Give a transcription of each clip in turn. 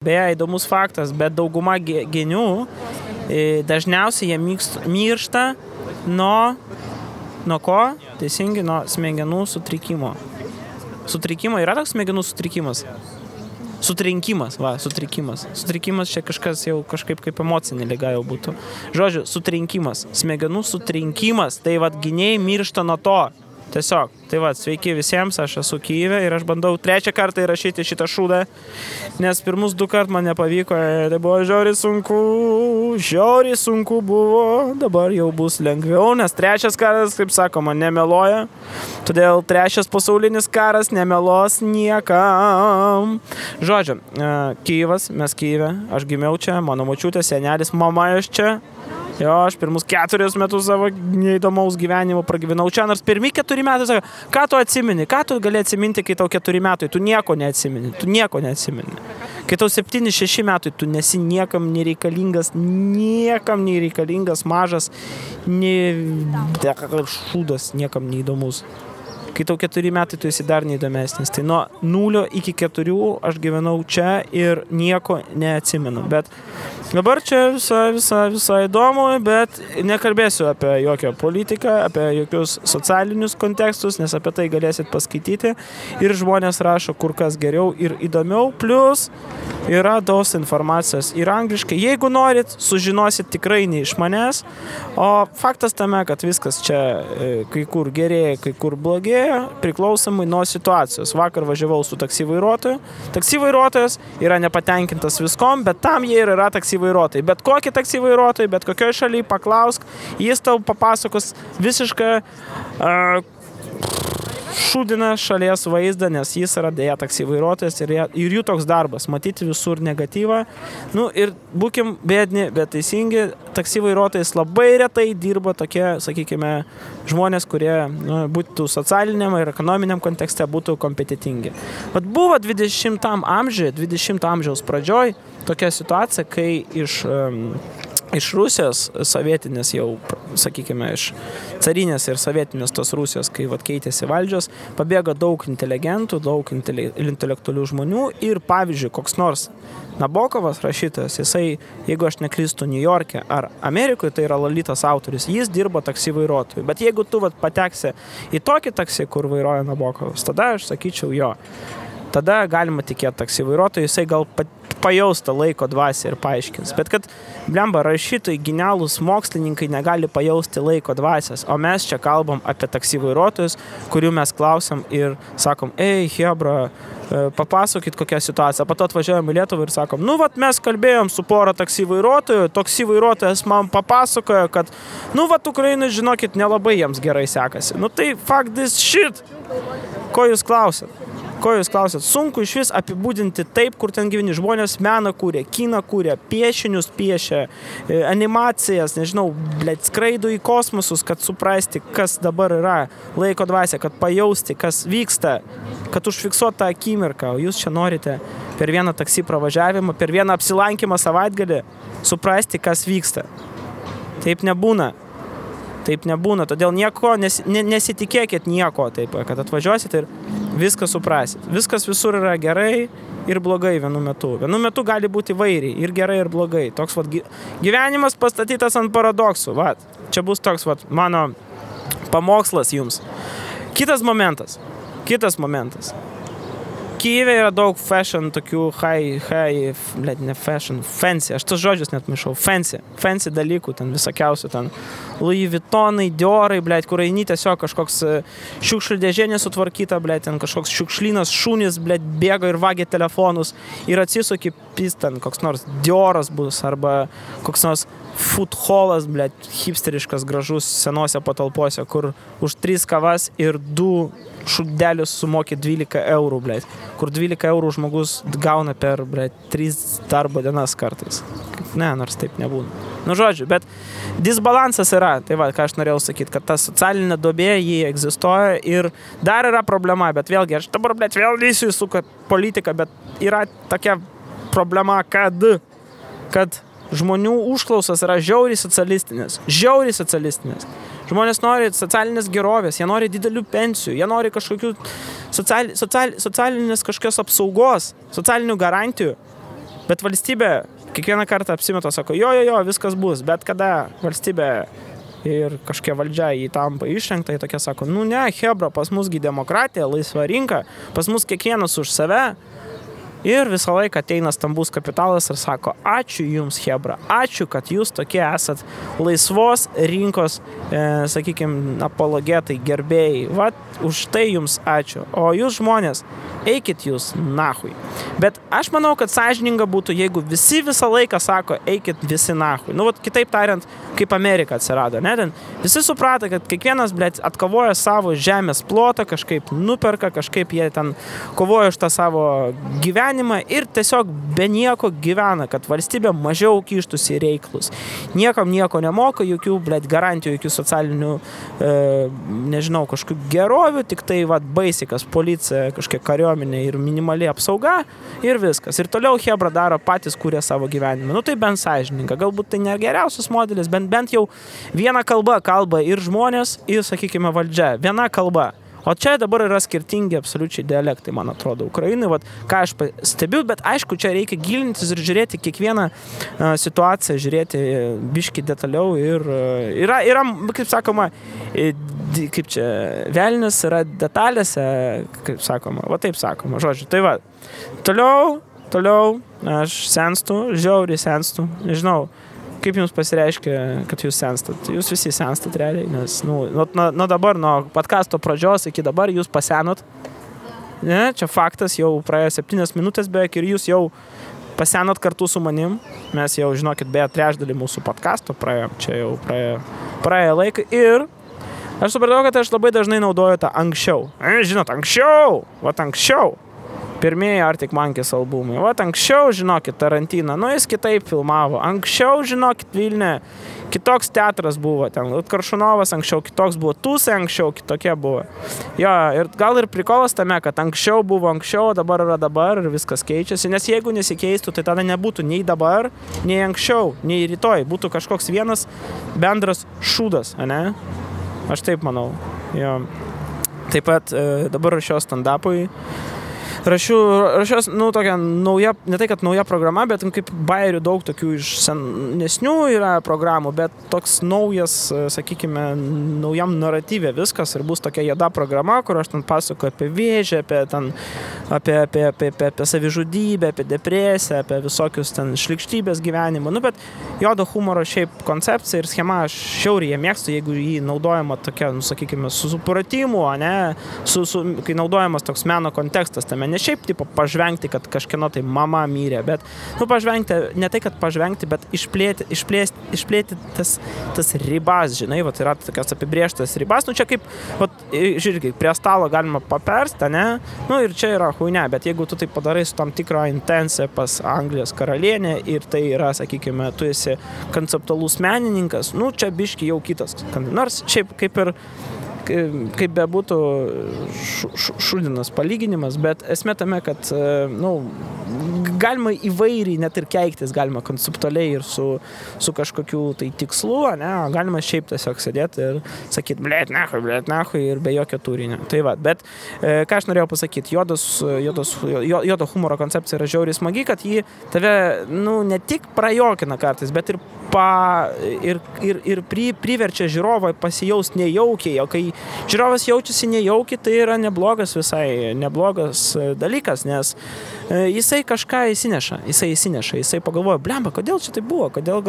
Beje, įdomus faktas, bet dauguma genių dažniausiai jie miršta nuo ko? Teisingai, nuo smegenų sutrikimo. Sutrikimo yra toks smegenų sutrikimas? Sutrikimas. Sutrikimas čia kažkas jau kažkaip kaip emocinė liga jau būtų. Žodžiu, sutrinkimas, smegenų sutrinkimas, tai vat gynėjai miršta nuo to. Tiesiog, tai va, sveiki visiems, aš esu Kyjive ir aš bandau 3 kartą įrašyti šitą šūdą, nes pirmus 2 kart man nepavyko, tai buvo žiauriai sunku buvo, dabar jau bus lengviau, nes 3 karas, kaip sakoma, nemeluoja, todėl 3 pasaulinis karas nemelos niekam. Žodžiu, Kyjivas, mes Kyjive, aš gimiau čia, mano močiutė, senelis, mama iš čia. Jo, aš pirmus 4 metus savo neįdomaus gyvenimo pragyvenau čia, nors pirmi 4 metai sako, ką tu atsimeni, ką tu gali atsiminti, kai tau 4 metai, tu nieko neatsimeni. Kai tau 7-6 metai, tu nesi niekam nereikalingas, mažas, šūdas, niekam neįdomus. Kai tau 4 metai, tu esi dar neįdomesnis. Tai nuo 0 iki 4 aš gyvenau čia ir nieko neatsimenu. Bet dabar čia visai įdomu, bet nekalbėsiu apie jokią politiką, apie jokius socialinius kontekstus, nes apie tai galėsit paskaityti. Ir žmonės rašo kur kas geriau ir įdomiau. Plus yra daug informacijos ir angliškai. Jeigu norit, sužinosit tikrai ne iš manęs. O faktas tame, kad viskas čia kai kur gerėja, kai kur blogėja, priklausomai nuo situacijos. Vakar važiavau su taksi vairuotoju. Taksi vairuotojas yra nepatenkintas viskom, bet tam jie ir yra taksi vairuotojai. Bet kokį taksi vairuotojai, bet kokioj šalyje paklausk, jis tau papasakos visišką šūdina šalies vaizdą, nes jis yra dėja taksi vairuotojas ir jų toks darbas, matyti visur negatyvą. Nu ir būkim bėdni, bet teisingi, taksi vairuotojais labai retai dirba tokie, sakykime, žmonės, kurie būtų socialiniam ir ekonominiam kontekste būtų kompetitingi. Vat buvo 20 amžiaus pradžioj tokia situacija, kai iš Rusijos sovietinės jau, sakykime, iš carinės ir sovietinės tos Rusijos, kai vat keitėsi valdžios, pabėgo daug inteligentų, daug intelektualių žmonių ir, pavyzdžiui, koks nors Nabokovas rašytojas, jisai, jeigu aš neklystu New York'e ar Amerikoje, tai yra Lolitos autorius, jis dirbo taksi vairuotojų. Bet jeigu tu vat pateksi į tokį taksi, kur vairuoja Nabokovas, tada aš sakyčiau jo. Tada galima tikėti taksi vairuotojų, jisai gal pajausta laiko dvasią ir paaiškins. Bet kad, blemba, rašytojai, genialūs mokslininkai negali pajausti laiko dvasios, o mes čia kalbam apie taksi vairuotojus, kurių mes klausom ir sakom, ei, hebra, papasakokit kokią situaciją. Po to atvažiuojam į Lietuvą ir sakom, nu, vat mes kalbėjom su pora taksi vairuotojų, taksi vairuotojas man papasakojo, kad, nu, vat Ukrainai, žinokit, nelabai jiems gerai sekasi. Nu, tai fuck this shit. Ko jūs klausėt? Sunku iš vis apibūdinti taip, kur ten gyveni. Žmonės meną kūrė, kiną kūrė, piešinius piešė, animacijas, nežinau, skraido į kosmosus, kad suprasti, kas dabar yra laiko dvasia, kad pajausti, kas vyksta, kad užfiksuot tą akimirką. O jūs čia norite per vieną taksi pravažiavimą, per vieną apsilankymą savaitgalį suprasti, kas vyksta. Taip nebūna, todėl nieko, nesitikėkit nieko, taip, kad atvažiuosit ir viską suprasit. Viskas visur yra gerai ir blogai vienu metu. Vienu metu gali būti įvairiai, ir gerai, ir blogai. Toks vat gyvenimas pastatytas ant paradoksų. Vat, čia bus toks vat mano pamokslas jums. Kitas momentas. Kyjive yra daug fashion, tokių fancy, aš tos žodžius net maišau, fancy dalykų, ten visokiausių, ten Louis Vuittonai, Diorai, kur eini tiesiog kažkoks šiukšlių dėžė nesutvarkyta, ten kažkoks šiukšlynas, šunys, bėga ir vagia telefonus ir atsisuki, ten koks nors Dioras bus, arba koks nors food hallas, hipsteriškas, gražus, senose patalpose, kur už 3 kavas ir 2 šūdelius sumoki 12 eurų, kur 12 eurų žmogus gauna per 3 darbo dienas kartais. Ne, nors taip nebūna. Nu, žodžiu, bet disbalansas yra, tai va, ką aš norėjau sakyti, kad ta socialinė duobė, jį egzistuoja ir dar yra problema, bet vėlgi, aš dabar, vėl lysiu į politiką, bet yra tokia problema, kad žmonių užklausas yra žiauriai socialistinės. Žmonės nori socialinės gerovės, jie nori didelių pensijų, jie nori kažkokių socialinės kažkokios apsaugos, socialinių garantijų. Bet valstybė kiekvieną kartą apsimeta, sako, jo, viskas bus, bet kada valstybė ir kažkokia valdžia jį tampa išrinkta, jie tokia sako, nu ne, hebra, pas musgi demokratija, laisva rinka, pas mus kiekvienas už save. Ir visą laiką ateina stambus kapitalas ir sako, ačiū jums, hebra, ačiū, kad jūs tokie esat laisvos rinkos, sakykime, apologetai, gerbėjai. Vat, už tai jums ačiū. O jūs žmonės, eikit jūs nahui. Bet aš manau, kad sąžininga būtų, jeigu visi visą laiką sako, eikit visi nahui. Nu, vat, kitaip tariant, kaip Amerika atsirado, ne? Ten visi suprato, kad kiekvienas, blėt, atkovoja savo žemės plotą, kažkaip nuperka, kažkaip jie ten kovoja už tą savo gyvenimą ir tiesiog be nieko gyvena, kad valstybė mažiau kištųsi į reikalus. Niekam nieko nemoka, jokių, blėt, garantijų, jokių socialinių, nežinau, kažkokių gerovių, tik tai, vat, baisikas, policija, kažkiek kariuomenė ir minimali apsauga ir viskas. Ir toliau hebra daro patys, kurie savo gyvenimą. Nu tai bent sąžininga. Galbūt tai nėra geriausias modelis, bent jau viena kalba ir žmonės, ir, sakykime, valdžia. Viena kalba. O čia dabar yra skirtingi absoliučiai dialektai, man atrodo, Ukrainai, vat, ką aš stebiu, bet aišku, čia reikia gilintis ir žiūrėti kiekvieną situaciją, žiūrėti biškį detaliau ir yra, kaip sakoma, kaip čia, velnius yra detalėse, kaip sakoma, va taip sakoma, žodžiu, tai va, toliau, aš senstu, žiauriai senstu, nežinau, kaip jums pasireiškia, kad jūs senstat? Jūs visi senstat realiai, nes nuo dabar, nuo podcasto pradžios iki dabar jūs pasenot. Ne, čia faktas, jau praėjo 7 minutės beveik ir jūs jau pasenot kartu su manim. Mes jau, žinokit, beje, trečdalį mūsų podcasto praėjom, čia jau praėjo laiką ir aš supratau, kad aš labai dažnai naudoju tą anksčiau. Žinot, anksčiau. Pirmieji Arctic Monkeys albumai. Vat anksčiau, žinokit, Tarantiną, nu jis kitaip filmavo. Anksčiau, žinokit, Vilniuje kitoks teatras buvo. Ten Karšunovas anksčiau kitoks buvo. Tūsai anksčiau kitokie buvo. Jo, ir gal ir prikolas tame, kad anksčiau buvo anksčiau, dabar yra dabar ir viskas keičiasi. Nes jeigu nesikeistų, tai tada nebūtų nei dabar, nei anksčiau, nei rytoj. Būtų kažkoks vienas bendras šūdas, ane? Aš taip manau. Jo. Taip pat dabar rašiau stand-upui. Rašiau, nu, tokia nauja, ne tai, kad nauja programa, bet kaip bairių daug tokių iš senesnių yra programų, bet toks naujas, sakykime, naujam naratyvė viskas ir bus tokia juoda programa, kur aš ten pasakoju apie vėžį, apie savižudybę, apie depresiją, apie visokius ten šlykštybės gyvenimą. Nu, bet juodo humoro šiaip koncepcija ir schema aš šiauriai mėgstu, jeigu jį naudojama tokia, nu, sakykime, su supratimu, ne, kai naudojamas toks meno kontekstas tame. Ne šiaip, tipo, pažvengti, kad kažkieno tai mama mirė, bet, nu, pažvengti, ne tai, kad pažvengti, bet išplėti tas ribas, žinai, vat yra tokios apibrėžtas ribas, nu, čia kaip, vat, žiūrėk, prie stalo galima papersti, ne, nu, ir čia yra huinė, bet jeigu tu tai padarai su tam tikro intencija pas Anglijos karalienę ir tai yra, sakykime, tu esi konceptualus menininkas, nu, čia biški jau kitas, nors šiaip kaip bebūtų šūdinas palyginimas, bet esmė tame, kad, nu, galima įvairiai net ir keiktis, galima konceptualiai ir su kažkokiu tai tikslu, ne, galima šiaip tiesiog sėdėti ir sakyti, blėt nahui ir be jokio turinio. Tai va, bet ką aš norėjau pasakyti, juodo humoro koncepcija yra žiauriai smagi, kad jį tave, nu, ne tik prajokina kartais, bet ir priverčia žiūrovą pasijaust nejaukiai, o kai žiūrovas jaučiasi nejaukiai, tai yra neblogas dalykas, nes jisai kažką įsineša, jisai pagalvoja, blemba, kodėl čia tai buvo, kodėl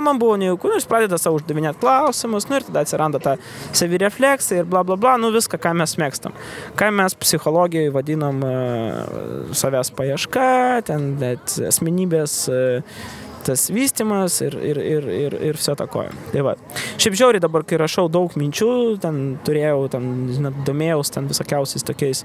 man buvo nejauku, jis pradeda savo uždavinėti klausimus, nu ir tada atsiranda ta savirefleksija ir bla bla bla, nu viską, ką mes mėgstam. Ką mes psichologijoje vadinam savęs paieška, ten asmenybės tas vystymas ir viso to koja. Tai va. Šiaip žiauriai dabar, kai rašau daug minčių, ten turėjau, domėjaus ten visokiausiais tokiais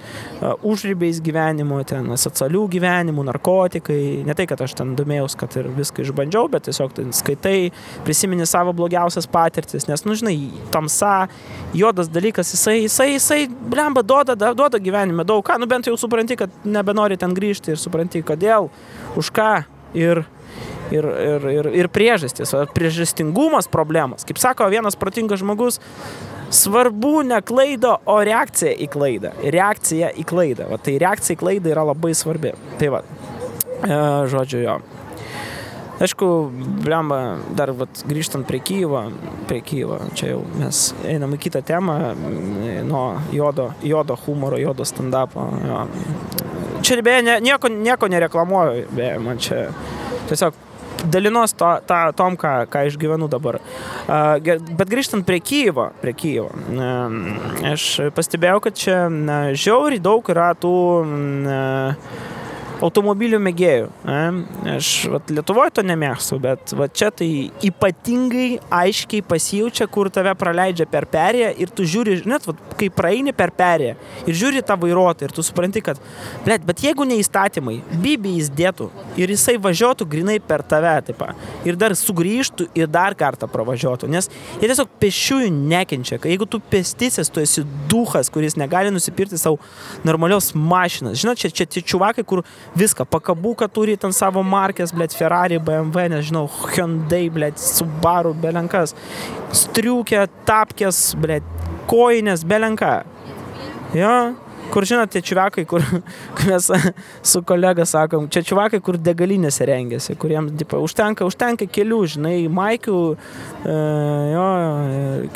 užribiais gyvenimo, ten asocialių gyvenimų, narkotikai. Ne tai, kad aš ten domėjaus, kad ir viską išbandžiau, bet tiesiog ten skaitai, prisimeni savo blogiausias patirtis, nes, nu, žinai, tamsa, juodas dalykas, jisai blemba, duoda gyvenime daug ką, nu, bent jau supranti, kad nebenori ten grįžti ir supranti, kodėl, už ką ir priežastis, priežastingumas problemas. Kaip sako vienas protingas žmogus, svarbu ne klaida, o reakcija į klaidą. Reakcija į klaidą. Va, tai reakcija į klaidą yra labai svarbi. Tai va. Žodžiu, jo. Aišku, blemba, dar grįžtant prie Kyjivo, čia jau mes einam į kitą temą, nuo jodo humoro, jodo stand-upo. Jo. Čia beje, nieko nereklamuoju, beje, man čia tiesiog dalinos tom, ką išgyvenu dabar. Bet grįžtant prie Kyjivo, aš pastebėjau, kad čia žiauriai daug yra tų automobilių mėgėjų. Aš Lietuvoje to nemėgstu, bet čia tai ypatingai aiškiai pasijaučia, kur tave praleidžia per perėją ir tu žiūri, net kai praeini per perėją ir žiūri tą vairuotoją ir tu supranti, kad bet jeigu ne įstatymai, bibi jis dėtų ir jisai važiuotų grinai per tave, taip, ir dar sugrįžtų ir dar kartą pravažiuotų, nes jie tiesiog pešiųjų nekenčia. Jeigu tu pėstysis, tu esi duchas, kuris negali nusipirkti savo normalios mašinas. Žinot, čia čiuvakai, kur viską, pakabuką turi ten savo markės, Ferrari, BMW, nežinau, Hyundai, Subaru, belenkas, striukė, tapkės, koinės, belenka. Jo, kur žinot, tie čiuvakai, kur mes su kolega sakom, čia čiuvakai, kur degalinėse rengiasi, kuriems užtenka kelių, žinai, maikių,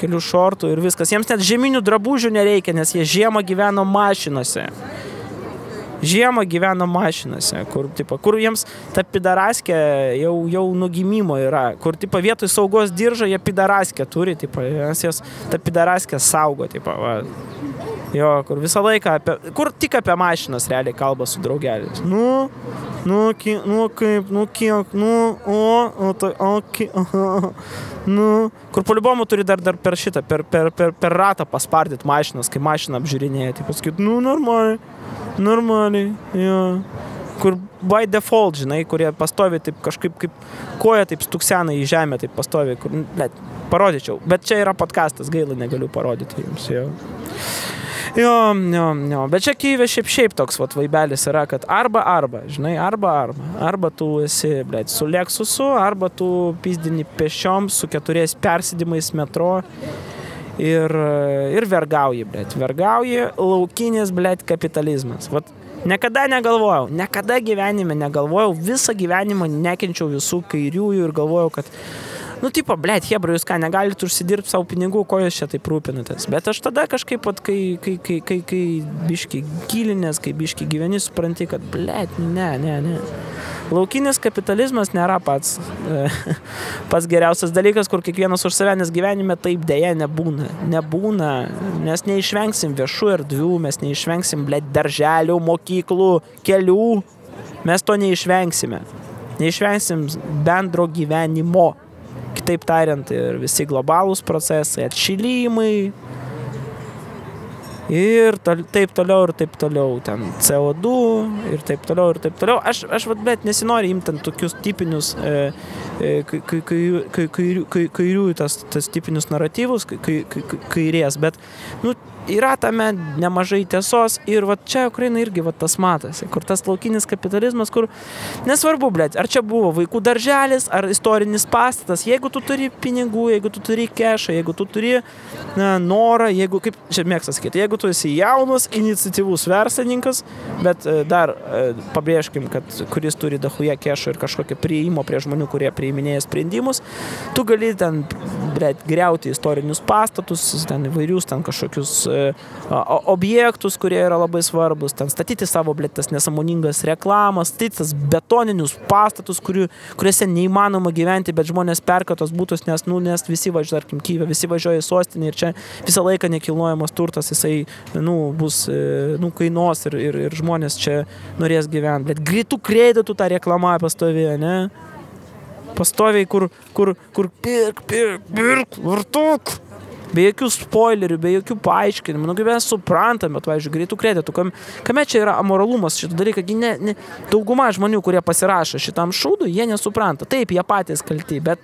kelių šortų ir viskas. Jiems net žieminių drabužių nereikia, nes jie žiemą gyveno mašinose. Kur jiems ta pidaraskė jau nugimimo yra, kur vietoj saugos diržo jie pidaraskę turi, nes jas ta pidaraskė saugo, jo, kur visą laiką, kur tik apie mašinas realiai kalba su draugeliais. Kur polibomų turi dar per šitą, per ratą paspardyti mašinas, kai mašiną apžiūrinėja, pasakyt, normaliai, jo. Kur by default, žinai, kurie pastovi taip kažkaip kaip koja taip stuksena į žemę, taip pastovi, kur, parodyčiau. Bet čia yra podcastas, gaila, negaliu parodyti jums, jo. Jo. Bet čia Kyjive šiaip toks vaibelis yra, kad arba, žinai, arba tu esi, su Lexusu, arba tu pizdini pešiom su 4 persėdimais metro ir vergauji, vergauji laukinis, kapitalizmas. Niekada gyvenime negalvojau, visą gyvenimą nekenčiau visų kairiųjų ir galvojau, kad hebra, jūs ką, negalit užsidirbti savo pinigų, ko jūs čia taip rūpinatės. Bet aš tada kažkaip, kai biški gilinės, kai biški gyveni, supranti, kad, ne. Laukinis kapitalizmas nėra pats geriausias dalykas, kur kiekvienas už save, nes gyvenime taip dėja nebūna. Mes neišvengsim viešų erdvių, mes neišvengsim, darželių, mokyklų, kelių. Mes to neišvengsime. Neišvengsim bendro gyvenimo. Kitaip tariant, ir visi globalūs procesai, atšilimai ir taip toliau, ten CO2 ir taip toliau. Aš nesinori imti tokius tipinius kairiųjų tas tipinius naratyvus, kairės, bet, yra tame nemažai tiesos ir čia Ukraina irgi tas matosi, kur tas laukinis kapitalizmas, kur nesvarbu, ar čia buvo vaikų darželis, ar istorinis pastatas, jeigu tu turi pinigų, jeigu tu turi kešą, jeigu tu turi norą, jeigu, kaip čia mėgsta sakyti, jeigu tu esi jaunas, iniciatyvus verslininkas, bet dar pabrėžkim, kad kuris turi dahuja kešą ir kažkokią priėjimo prie žmonių, kurie priiminėja sprendimus, tu gali ten griauti istorinius pastatus, ten įvairius, ten kažkokius objektus, kurie yra labai svarbus, ten statyti savo, tas nesąmoningas reklamas, statyti tas betoninius pastatus, kuriuose neįmanoma gyventi, bet žmonės perka tos būtus, nes visi važiuoja, tarkim, Kyjive, visi važiuoja į sostinę ir čia visą laiką nekilnojamas turtas, jisai, bus, kainuos ir žmonės čia norės gyventi, bet greitų kreditų tą reklamą pastovėje, ne? Pastoviai, kur pirk, vartok. Be jokių spoilerių, be jokių paaiškinimų, kaip mes suprantame, bet, pavyzdžiui, greitų kreditų. Kame čia yra amoralumas šitą dalyką? Dauguma žmonių, kurie pasirašo šitam šūdui, jie nesupranta. Taip, jie patys kalti, bet,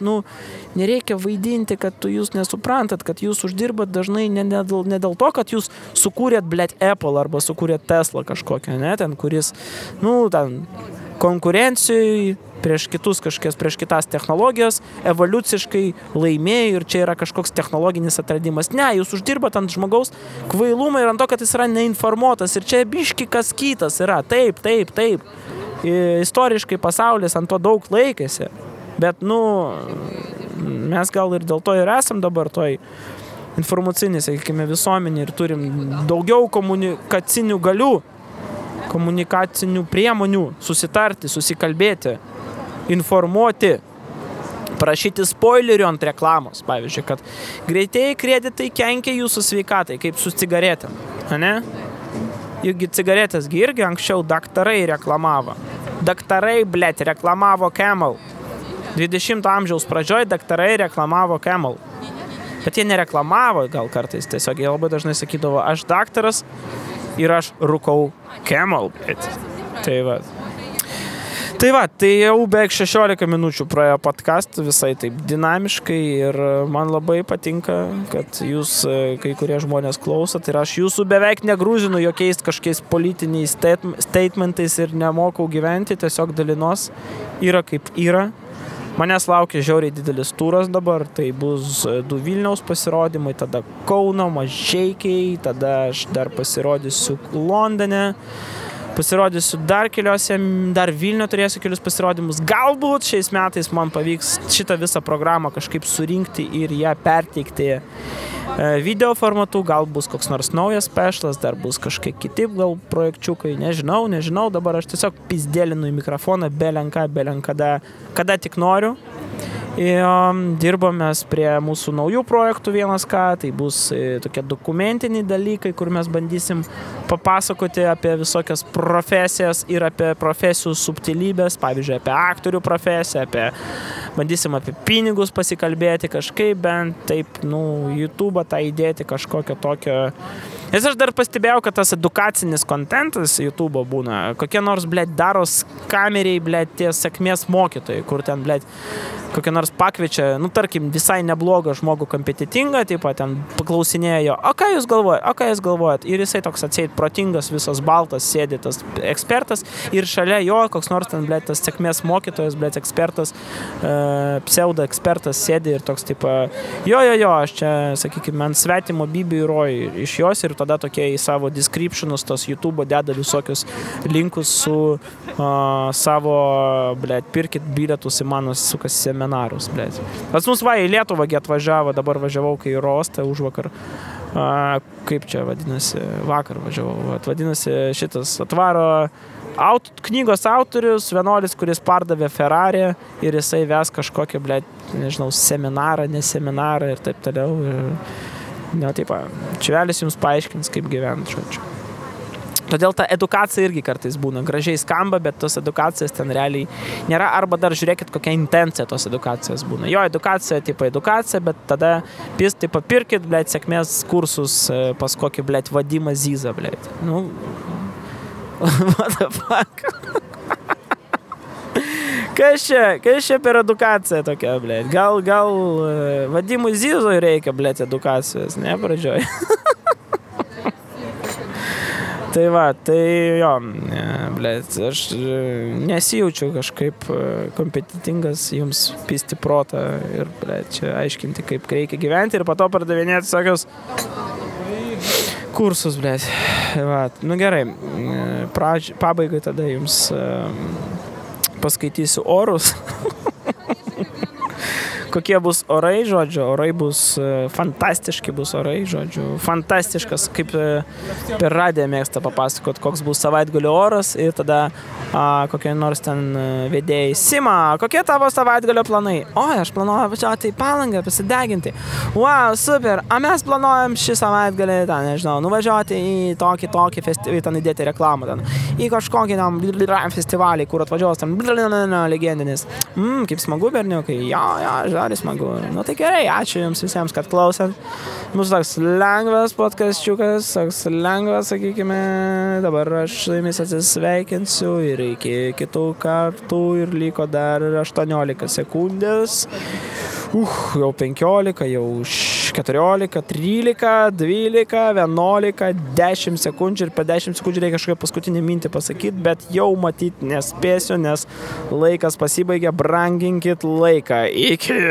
nereikia vaidinti, kad jūs nesuprantat, kad jūs uždirbat dažnai ne dėl to, kad jūs sukūrėt, Apple arba sukūrėt Tesla kažkokią, ne, ten, kuris, ten konkurencijai prieš kitas technologijas evoliuciškai laimėjo ir čia yra kažkoks technologinis atradimas. Ne, jūs uždirbat ant žmogaus kvailumą ir ant to, kad jis yra neinformuotas ir čia biški kas kitas yra. Taip. istoriškai pasaulis ant to daug laikėsi. Bet, mes gal ir dėl to ir esam dabar toj informacinį, sakykime, visuomenį ir turim daugiau komunikacinių galių, komunikacinių priemonių, susitarti, susikalbėti, informuoti, prašyti spoilerių ant reklamos, pavyzdžiui, kad greitieji kreditai kenkia jūsų sveikatai, kaip su cigaretėm, ne? Juk cigaretės irgi anksčiau daktarai reklamavo. Daktarai, reklamavo Camel. 20 amžiaus pradžioj daktarai reklamavo Camel. Bet jie nereklamavo gal kartais, tiesiog jie labai dažnai sakydavo, aš daktaras ir aš rūkau Camel. Tai jau beveik 16 minučių praėjo podcast visai taip dinamiškai ir man labai patinka, kad jūs kai kurie žmonės klausot ir aš jūsų beveik negrūzinu jokiais kažkokiais politiniais statementais ir nemokau gyventi, tiesiog dalinos yra kaip yra. Manęs laukia žiauriai didelis turas dabar, tai bus 2 Vilniaus pasirodymai, tada Kauno, Mažeikiai, tada aš dar pasirodysiu Londone, pasirodysiu dar keliuose, dar Vilniuje turėsiu kelius pasirodymus. Galbūt šiais metais man pavyks šitą visą programą kažkaip surinkti ir ją perteikti video formatu, gal bus koks nors naujas specialas, dar bus kažkiek kiti gal projekčiukai, nežinau, dabar aš tiesiog pizdėlinu į mikrofoną, belenkada, kada tik noriu. Ir dirbomės prie mūsų naujų projektų tai bus tokie dokumentiniai dalykai, kur mes bandysim papasakoti apie visokias profesijas ir apie profesijų subtilybės, pavyzdžiui, apie aktorių profesiją, bandysim apie pinigus pasikalbėti kažkaip, bent taip, YouTube tą įdėti kažkokio tokio. Nes aš dar pastebėjau, kad tas edukacinis kontentas YouTube būna, kokie nors, daros kameriai, tie sėkmės mokytojai, kur ten, kokie nors pakviečia, tarkim, visai neblogą žmogų kompetitingą, taip pat ten paklausinėjo, o ką jūs galvojat? Ir jisai toks atseit protingas, visas baltas, sėdi tas ekspertas ir šalia jo koks nors ten, tas sėkmės mokytojas, ekspertas, pseudo ekspertas sėdi ir toks, taip, jo, aš čia, sakykime, ant svetimo Bibi įroju iš jos ir tada tokie į savo descriptionus tos YouTube deda visokius linkus su savo, pirkit bilietus į mano sukas seminarus, Pas mus į Lietuvą atvažiavo, dabar važiavau, kai į Rostą užvakar. Kaip čia vadinasi? Vakar važiavau. Vadinasi, šitas atvaro knygos autorius, vienuolis, kuris pardavė Ferrari ir jisai ves kažkokią, seminarą, neseminarą ir taip toliau. Čiuvelis jums paaiškins, kaip gyventi, žodžiu. Todėl ta edukacija irgi kartais būna gražiai skamba, bet tos edukacijas ten realiai nėra, arba dar žiūrėkit, kokia intencija tos edukacijos būna. Jo, edukacija, edukacija, bet tada pirkit, sėkmės kursus pas kokį, Vadimą Zizą, what the fuck? Kas čia per edukacija tokia, Gal Vadimui Zizoj reikia, edukacijos, ne, pradžioj. Tai jo, aš nesijaučiu kažkaip kompetitingas jums pisti protą ir, čia aiškinti, kaip reikia gyventi ir po to pardavinėti tokius kursus, Gerai, pabaigai tada jums paskaitysiu orus. Kokie bus orai, žodžiu, orai bus fantastiški, fantastiškas, kaip per radiją mėgsta papasakot, koks bus savaitgalio oras ir tada kokie nors ten vedėjai. Sima, kokie tavo savaitgalio planai? Aš planuoju važiuoti į Palangą, pasideginti. Wow, super, mes planuojam šį savaitgalį, nuvažiuoti į tokį festivalį, ten įdėti reklamą, į kažkokį festivalį, kur atvažiuos ten legendinis. Kaip smagu, berniukai, žodis smagu. Tai gerai, ačiū jums visiems, kad klausėt. Mūsų toks lengvas podcastiukas, toks lengvas, sakykime, dabar aš su jumis atsisveikinsiu ir iki kitų kartų ir liko dar 18 sekundės. Jau 15, jau 14, 13, 12, 11, 10 sekundžių ir per 10 sekundžių reikia kažkokią paskutinį mintį pasakyti, bet jau matyti nespėsiu, nes laikas pasibaigė, branginkit laiką. Iki!